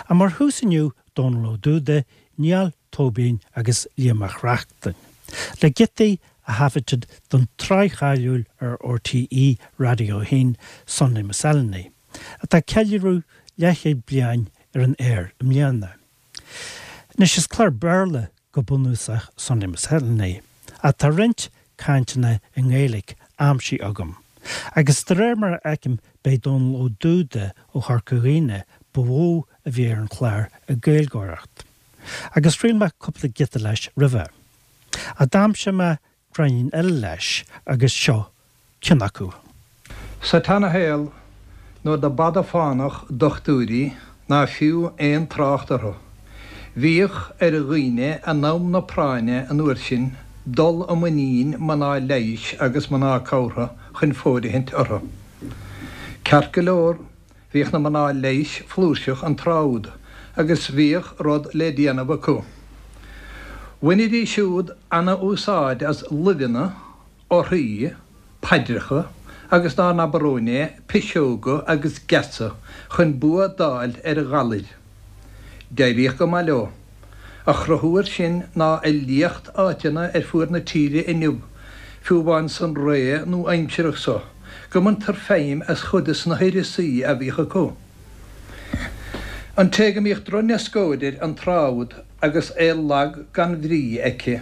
Ach mar thús inniu, Dónal Ó Dúda, Niall Tóibín agus Liam Mac Reachtain, le giotaí a thaifeadtaid don tsraith cháiliúil ar RTÉ Raidió 1, Sunday Miscellany, atá ag ceiliúradh leathchéad bliain ar an aer i mbliana. Anois, is clár Béarla go bunúsach Sunday Miscellany, ach tá roinnt cainteanna i nGaeilge aimsithe agam, agus de réir mar a fheicim b'é Dónal Ó Dúda ó Chorca Dhuibhne ba mhó a bhí ar an chlár ag Gaeilgeoireacht. Agus chraol mé cúpla giota leis roimhe. Ach d'aimsigh mé gráinnín eile leis agus seo ceann acu. Sa tseana-shaol, nuair do b'fhada fánach dochtúirí ná fiú aon trácht orthu, bhíodh ar dhaoine in am na práinne an uair sin dul i muinín mná leighis agus mná cabhartha chun fóirithint orthu. Ceart go leor, Bhíodh na mná leighis flúirseach an tráth úd agus bhíodh rud le déanamh acu. Bhainidís siúd ana-úsáid as luibheanna, orthaí, paidreacha agus dá n-abair romhainn é, piseoga agus geasa chun bua d'fháil ar ghalair. D'éiríodh go maith leo. A chruthú air sin ná a liacht áiteanna ar fuaid na tíre inniu, fiú amháin san ré nua-aimsearach so, go mbaintear feidhm as chuid de na huireasaí a bhíodh acu. An té go mbíodh drochneascóid air an tráth úd agus é lag gan bhrí aici,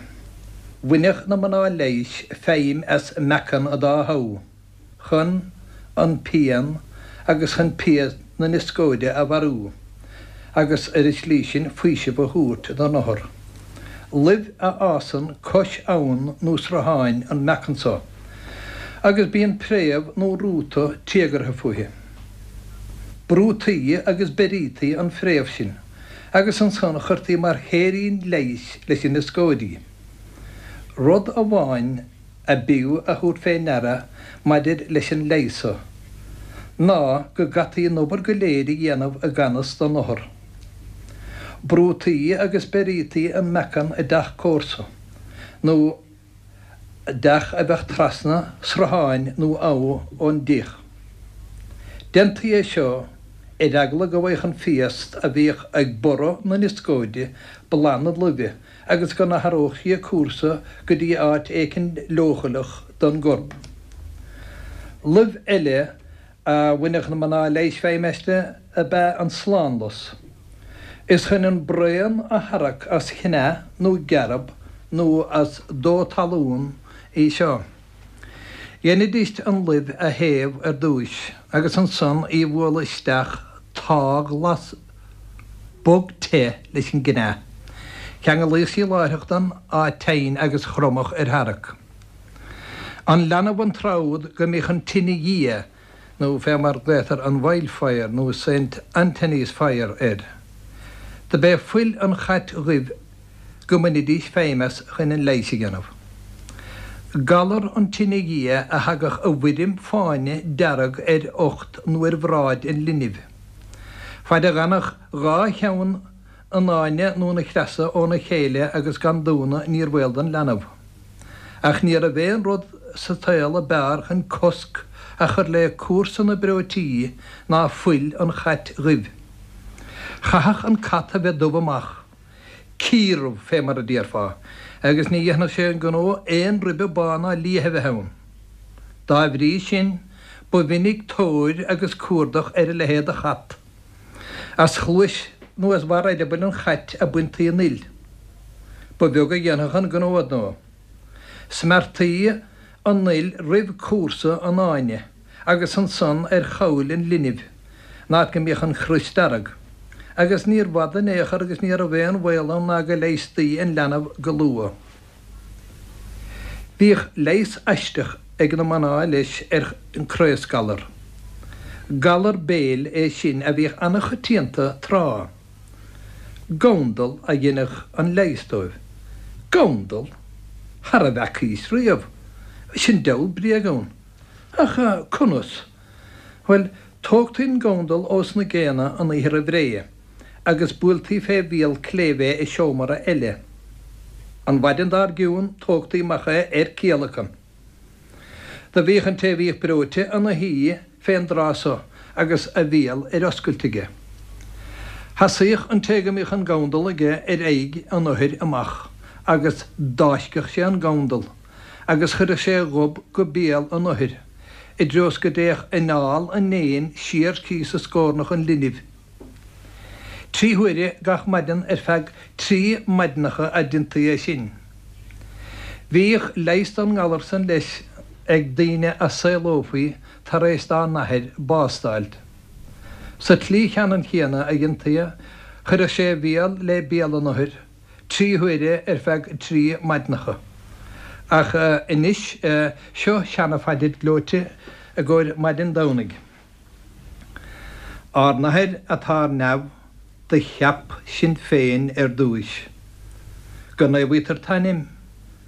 bhaineadh na mná leighis feidhm as meacan an dá thabh. chun an pian agus chun pian na nioscóide a mharú agus ar an tslí sin faoiseamh a thabhairt don othar. Luibh a fhásann cois abhann nó srutháin an meacan so, agus bíonn préamh nó rúta téagartha fúithi. Brútaí agus beirítaí an phréamh sin agus ansan chuirtí mar shéirín leighis leis an nioscóid í. Rud amháin a b'fhiú a thabhairt fé ndeara maidir leis an leigheas so, ná go gcaití an obair go léir a dhéanamh i gan fhios don othar. Brútaí agus beirítaí an meacan i dteach comharsa, nó dteach a bheadh trasna srutháin nó abha ón dteach. Déantaí é seo ar eagla go bhfaigheadh an phiast a bhíodh ag borradh na nioscóide boladh na luibhe agus go n-athródh sí a cúrsa go dtí áit éicint leochaileach don gcorp. Luibh eile a bhaineadh na mná leighis feidhm aisti ab ea an slánlus. Is chun an braon a tharrac as cneá nó gearb nó as dó talún í seo. Dheinidís an luibh a théamh ar dtúis agus ansan í a bhualadh isteach táthghlas bog te leis an gcneá. Cheanglaíodh sí láithreach don áit tinn agus chromadh ar tharrac. An leanbh an tráth úd go mbíodh an tine dhiaidh nó fé mar glaotar an Wildfire nó Saint Anthony's Fire air. Do b'é fuil an chait dhuibh go mbainidís feidhm as chun an leighis a dhéanamh. Galar an tine dhiaidh a thagadh i bhfoirm fáinne dearg ar ucht nó ar bhráid an linbh. Faid a dh'fhanfadh dha cheann an fháinne nó na creasa óna chéile agus gan dúnadh níor bhaol don leanbh. Ach ní raibh aon rud sa tsaol a b'fhearr chun cosc a chur le cúrsa na breoití ná fuil an chait dhuibh. Chaithfeadh an cat a bheith dubh amach, ciardhubh fé mar a déarfá, agus ní dhéanfadh sé an gnó aon ribe bán ná liath a bheith ann. Dá bhrí sin, ba mhinic tóir agus cuardach ar a leithéid de chat. As chluais nó as bharr eireabaill an chait a baintí an fhuil. Ba bheag a dhéanfadh an gnó ar ndóigh. Smeartaí an fhuil roimh cúrsa an fháinne agus ansan ar chabhail an linbh, an áit go mbíodh an chrios dearg. Agus níor bhfada in aon chor agus ní raibh aon bhaol ann ná go leigheastaí an leanbh go luath. Bhíodh leigheas aisteach ag na mná leis ar an craosghalar. Galar béil é sin a bhíodh ana-choitianta tráth. Gandal a dheineadh an leigheas dóibh. Gandal? Thar a bhfeacaís riamh. Sin diabhal bréag ann. Ach conas? Bhuel, tógtaí an gandal ós na géanna an oíche roimh ré, agus buailtí fé bhial cléibh é i seomra eile. An mhaidin dár gcionn tógtaí amach é ar ciallacan. Do bhíodh an té a bhíodh breoite ina shuí fén dtráth so agus a bhéal ar oscailt aige. Sheasaíodh an té go mbíodh an gabhdal aige ar aghaidh an othair amach agus d'fháisceadh sé an gabhdal agus chuireadh sé a ghob go béal an othair i dtreo 's go dtéadh anáil an éin siar síos i scornach an linbh. Trí huaire gach maidin ar feadh trí maidineacha a deintaí é sin. Bhíodh leigheas don ngalar san leis ag daoine a saolófaí tar éis dá n-athair bás d'fháilt. Sa tslí cheannann chéanna a dheintaí é, chuireadh sé a bhéal le béal an othair trí huaire ar feadh trí maidineacha. Ach anois, seo seana-phaidir gleoite i gcomhair maidin Domhnaigh. Ár nAthair atá ar neamh, do cheap sinn féin ar dtúis. Go naomhaítear t'ainm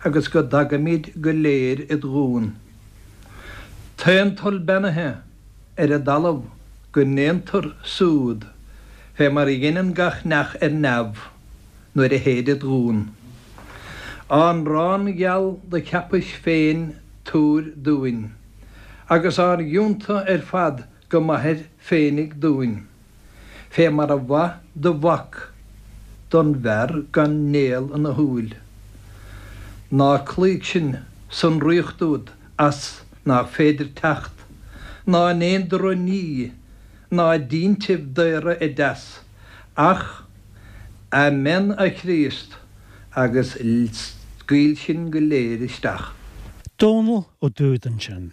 agus go dtagaimid go léir id ghuan. T'aon toil beannaithe ar an dtalamh go ndéantar súd fé mar a dheineann gach neach ar neamh nuair a théid id ghuan. Ár n-arán gheal do cheapais féin tabhair dúinn. Agus ár gcionta ar fad go maithir féinig dúinn, fé mar a mhaith do mhac don bhfear gan néal ina shúil. Ná cloígh sinn san ríocht úd as nach féidir teacht, ná in aon droch-ní, ná i dtintibh daora i dteas, ach Amen a Chríost agus scaoil sinn go léir isteach. Dónall Ó Dúda ansin.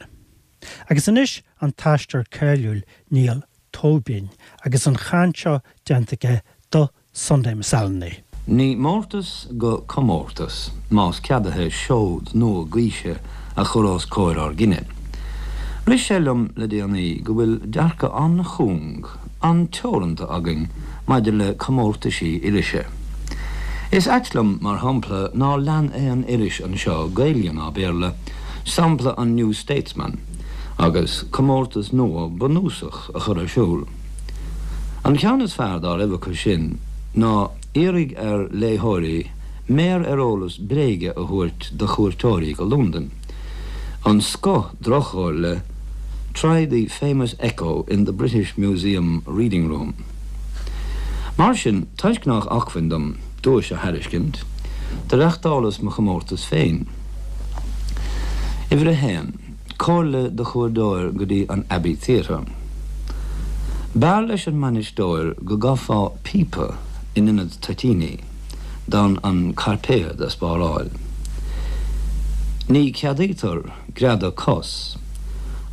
Agus anois an t-aisteoir cáiliúil Niall Tóibín agus an chaint seo déanta aige do Sunday Miscellany. Ní mórtas go comórtas, más ceadaithe seod nua gaoise a chur os comhair ár gcine. Rith sé liom le déanaí go bhfuil dearcadh an-chúng, an-teoranta againn maidir le comórtaisí irise. Is ait liom, mar shampla, nár lean aon iris anseo, Gaeilge ná Béarla, sampla an New Statesman agus comórtas nua bunúsach a chur ar siúl. An ceann is fearr dá raibh acu sin ná iarraidh ar léitheoirí méar ar eolas bréige a thabhairt do chuairteoirí go Londain. An scoth droch-chomhairle, Try the famous echo in the British Museum reading room. Mar sin, toisc nách acmhainn dom duais a thairiscint, do reachtálas mo chomórtas féin. Uimhir a haon, Comhairle do chuairoir go dtí an Abbey Theatre. B'fhearr leis an mbainisteoir go gcaithfeá píopa in ionad toitíní, d'fhonn an cairpéad a spáráil. Ní ceadaítear greadadh cos,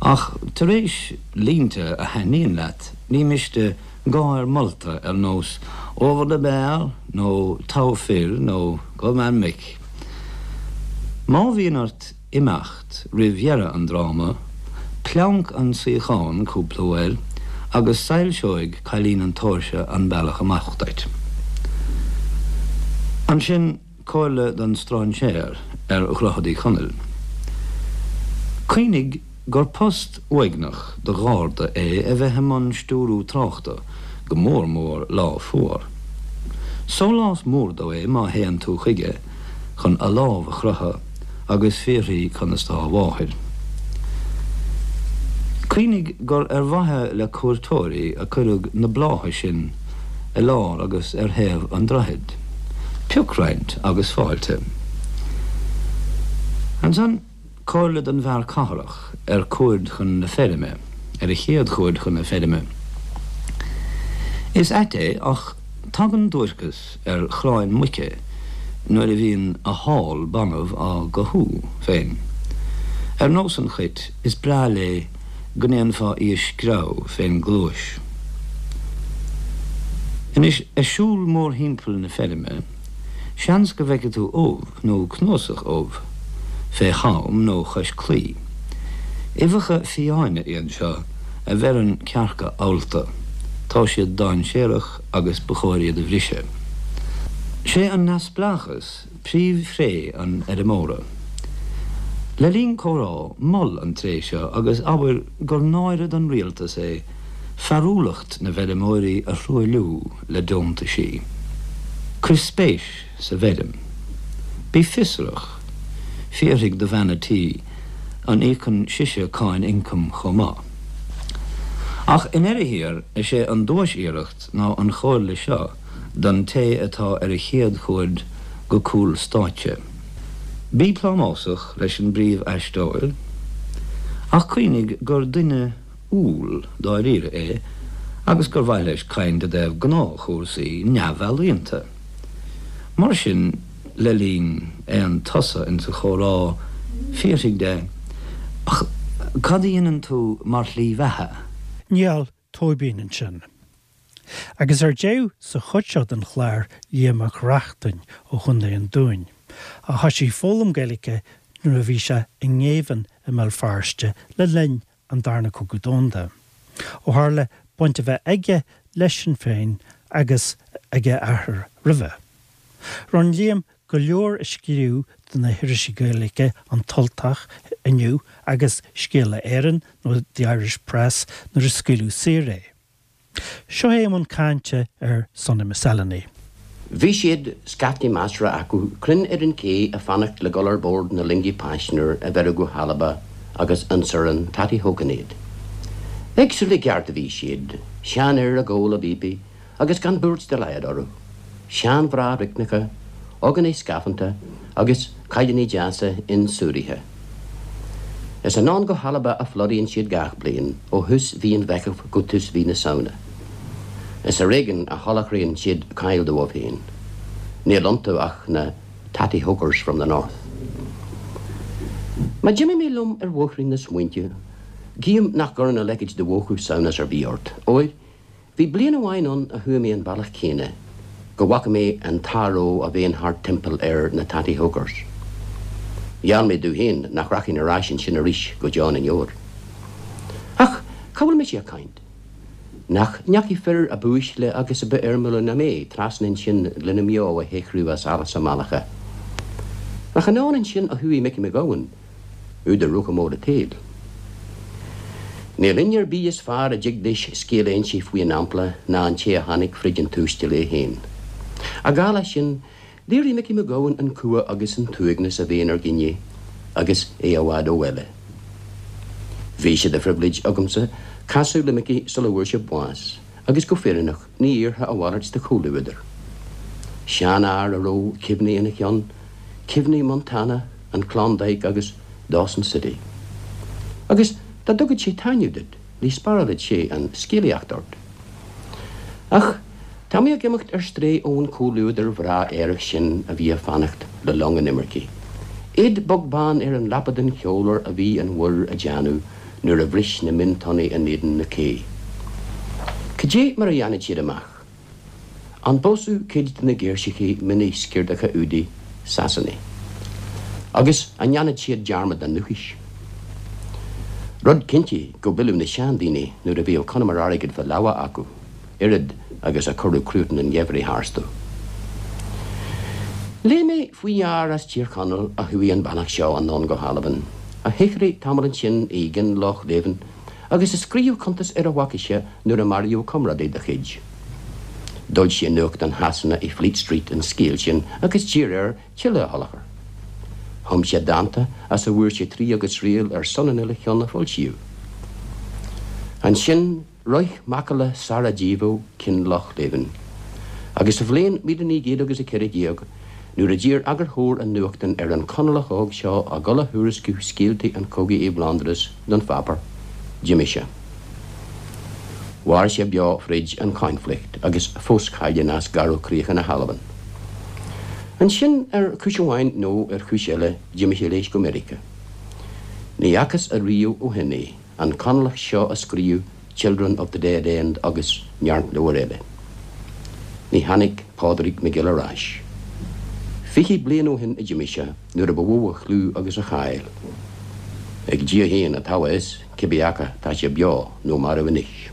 ach tar éis línte a thaitníonn leat, ní miste gáir molta ar nós 'Over the bar' nó 'Togha fir' nó 'Good man Mick'. Má bhíonn ort imeacht roimh dheireadh an dráma, pleanc an suíochán cúpla uair agus soilseoidh cailín an tóirse an bealach amach duit. Ansin. Comhairle don stráinséir ar Dhroichead Uí Chonaill. Cuimhnigh gur post uaigneach do gharda é a bheith i mbun stiúrú tráchta, go mór mór lá fuar. Sólás mór dó é má théann tú chuige chun a lámh a chroitheadh agus fiafraí conas tá a mháthair. Cuimhnigh gur ar mhaithe le cuairteoirí a cuireadh na blátha sin i lár agus ar thaobh an droichid. Pioc roinnt agus fáilte. Ansan, comhairle don bhfear cathrach ar cuaird chun na feirme, ar a chéad chuaird chun na feirme. Is ait é ach tagann duairceas ar chráin muice nuair a bhíonn a hál banbh á gcothú féin. Ar nós an chait, is breá léi go ndéanfá í a screamh fén gcluais. Anois, ag siúl mórthimpeall na feirme, seans go bhfeicfidh tú ubh, nó cnuasach ubh, fé cham nó chois claí. Uibheacha fiáine iad seo a bheireann cearca allta. Tá siad dainséarach agus ba chóir iad a bhriseadh. Sé an neamhspleáchas príomhthréith an fheirmeora. Le linn comhrá, mol an tréith seo agus abair gur náire don rialtas é fearúlacht na bhfeirmeoirí a thruailliú le deontaisí. Cuir spéis sa bhfeirm. Bí fiosrach. Fiafraigh de bhean a' tí an íocann sise cáin ioncaim chomh maith. Ach i ndeireadh thiar, is é an duais-iarracht ná an chomhairle seo don té atá ar a chéad chuaird go cúl stáitse. Bí plámásach leis an bpríomh-aisteoir, ach cuimhnigh gur duine umhal dáiríre é agus gur mhaith leis caint i dtaobh gnáthchúrsaí neamhealaíonta. Mar sin, le linn aon tsosa insa chomhrá, fiafraigh de, Ach cad a dhéanann tú mar shlí bheatha? Niall Tóibín ansin. Agus ar deireadh sa chuid seo den chlár, Liam Mac Reachtain ó Chontae an Dúin, a thoisigh foghlaim Gaeilge nuair a bhí sé i ngéibheann i mBéal Feirste le linn an Darna Cogadh Domhanda, ó tharla baint a bheith aige le Sinn Féin agus ag a athair roimhe. Rinne Liam go leor a scríobh do na hirisí Gaeilge An tUltach, Inniu agus Scéala Éireann nó The Irish Press nuair a scaoileadh saor é. Seo é i mbun cainte ar Sonny McSelane. Bhí siad, scaifte measartha acu, cruinn ar an ché a' fanacht le dhul ar bord na loinge paisnéar a bheireadh go hAlba agus ionsar an Tattyhoken iad. Éagsúil i gceart a bhí siad, seanfhir ag ól a bpíopaí agus gan buairt dá laghad orthu, seanmhná righneacha, ógánaigh scafánta agus cailíní deasa insúraithe. Is anonn go hAlba a phlódaíonn siad gach bliain, ó thús mhí an Mheithimh go tús mhí na Samhna. Is ar éigean a sholáthraíonn siad cáil dóibh féin. Níl iontu ach na tatty hokers from the north. Má d'imigh mé liom ar bhóithrín na smaointe, guím nach gcuireann a leithéid de mhúchadh samhnas ar bith ort, óir Bhí bliain amháin ann a chuaigh mé an bealach céanna, go bhfaca mé an t-athró a bhíonn thart timpeall ar na tatty hokers. Gheall mé domh féin nach rachainn ar ais ansin arís go deo na ndeor. Ach cá bhfuil mise ag caint? Nach ndeachaigh fir a b'uaisle agus a b'fhoirmiúla ná mé trasna ansin lena mbeo a shaothrú as allas a mbealacha? Nach anonn ansin a chuaigh Micí Mac Gabhann? Údar Rochamore an tSaoil. Níl éinne ar bith is fearr a dtig leis scéal a inse faoi an ampla ná an té a tháinig frid an tuaistil é féin. Ach dála sin, léirigh Micí Mac Gabhann an cumha agus an t-uaigneas a bhíonn ar dhaoine agus é i bhfad ó bhaile. Bhí sé de phribhléid agamsa casadh le Micí sula bhfuair sé bás agus go fírinneach ní iarrfá a mhalairt de chomhluadar. Seanfhear a raibh cuimhní ina cheann, cuimhní Montana, an Klondike agus Dawson City. Agus dá dtugad sé taitneamh duit, ní spárálfad sé an scéalaíocht ort. Ach tá mé ag imeacht ar strae ón chomhluadar bhreá aerach sin a bhí ag fanacht le long an imircigh. Iad beag beann ar an leapa den cheolar a bhí an mhuir a déanamh nuair a bhris na miontonnaí in éadan na cé. Cad é mar a dhéanfad siad amach? An bpósfadh cuid de na girseachaí mini-sciortacha údaí Sasanaigh? Agus an ndéanfad siad dearmad dá ndúchais? Rud cinnte go bpilleadh na seandaoine nuair a bhíodh conamar airgid fá lámha acu, oiread agus a cuireadh cruatan an gheimhridh tharstu. Léigh mé faoi fhear as Tír Chonaill a chuaigh an bealach seo anonn go hAlbain, a shaothraigh tamall ansin i gCinlochleven agus a scríobh cuntas ar a bhfaca sé nuair a maraíodh comrádaí dá chuid. D'fhoilsigh nuachtán Shasana i Fleet Street an scéal sin agus d'iarr air tuilleadh a sholáthar. Chum sé dánta as a bhfuair sé triath agus triail ar son an uile cheann a foilsíodh. Ansin shroich macalla Sarajevo Kinlochleven agus sa bhliain 1914 nuair a d'iarr eagarthóir an nuachtáin ar an Chonallach óg seo a dhul a thuairisciú scéaltaí an chogaidh i bhFlóndras don pháipéar, d'imigh sé. Mhair sé beo fríd an choinflicht agus fós cailleadh as garbhchríocha na hAlban. Ansin, ar chúis amháin nó ar chúis eile, d'imigh sé leis go Meiriceá. Ní fhacthas ariamh ó shin é, an Conallach seo a scríobh Children of the Dead End agus neart leabhar eile. Ní tháinig Pádraig McGill ar ais. 20 bliain ó shin a d'imigh sé, nuair a ba mhó a chlú agus a cháil. Ag Dia féin atá a fhios cibé acu tá sé beo nó marbh anois.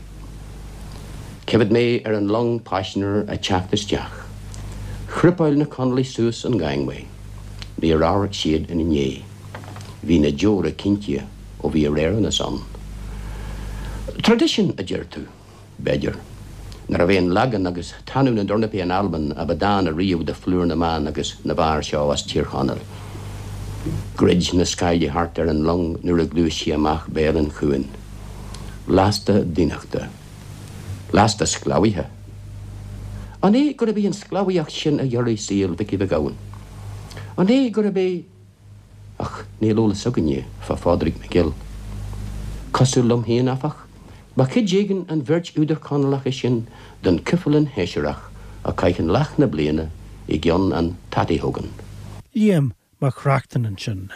Cífead mé ar an long paisinéar ag teacht isteach. Chrupáil na Conallaigh suas an gangway. Níor amharc siad ina ndiaidh. Bhí na deora cinnte ó bhí ar Éireannas ann. Traidisiún, a deir tú? B'fhéidir. Nárbh é an leagan agus tanú na dtornapaí in Albain a ba dána riamh de phlúr na mban agus na bhfear seo as Tír Chonaill. Dhruid na scáilí thart ar an long nuair a ghluais sí amach béal an chuain. Lasta daonnachta. Lasta sclábhaithe. An é gurb í an sclábhaíocht sin a ghiorraigh saol Mhicí Mhic Gabhann? An é gurb é. Ach níl eolas againne fá Phádraig McGill. Cosúil liom féin, áfach, ba chuid éigin an bheirt údar Chonallacha sin den chuibhreann shóisearach a chaitheann leath na bliana i gceann an Tattyhogan. Liam Mac Reachtain ansin.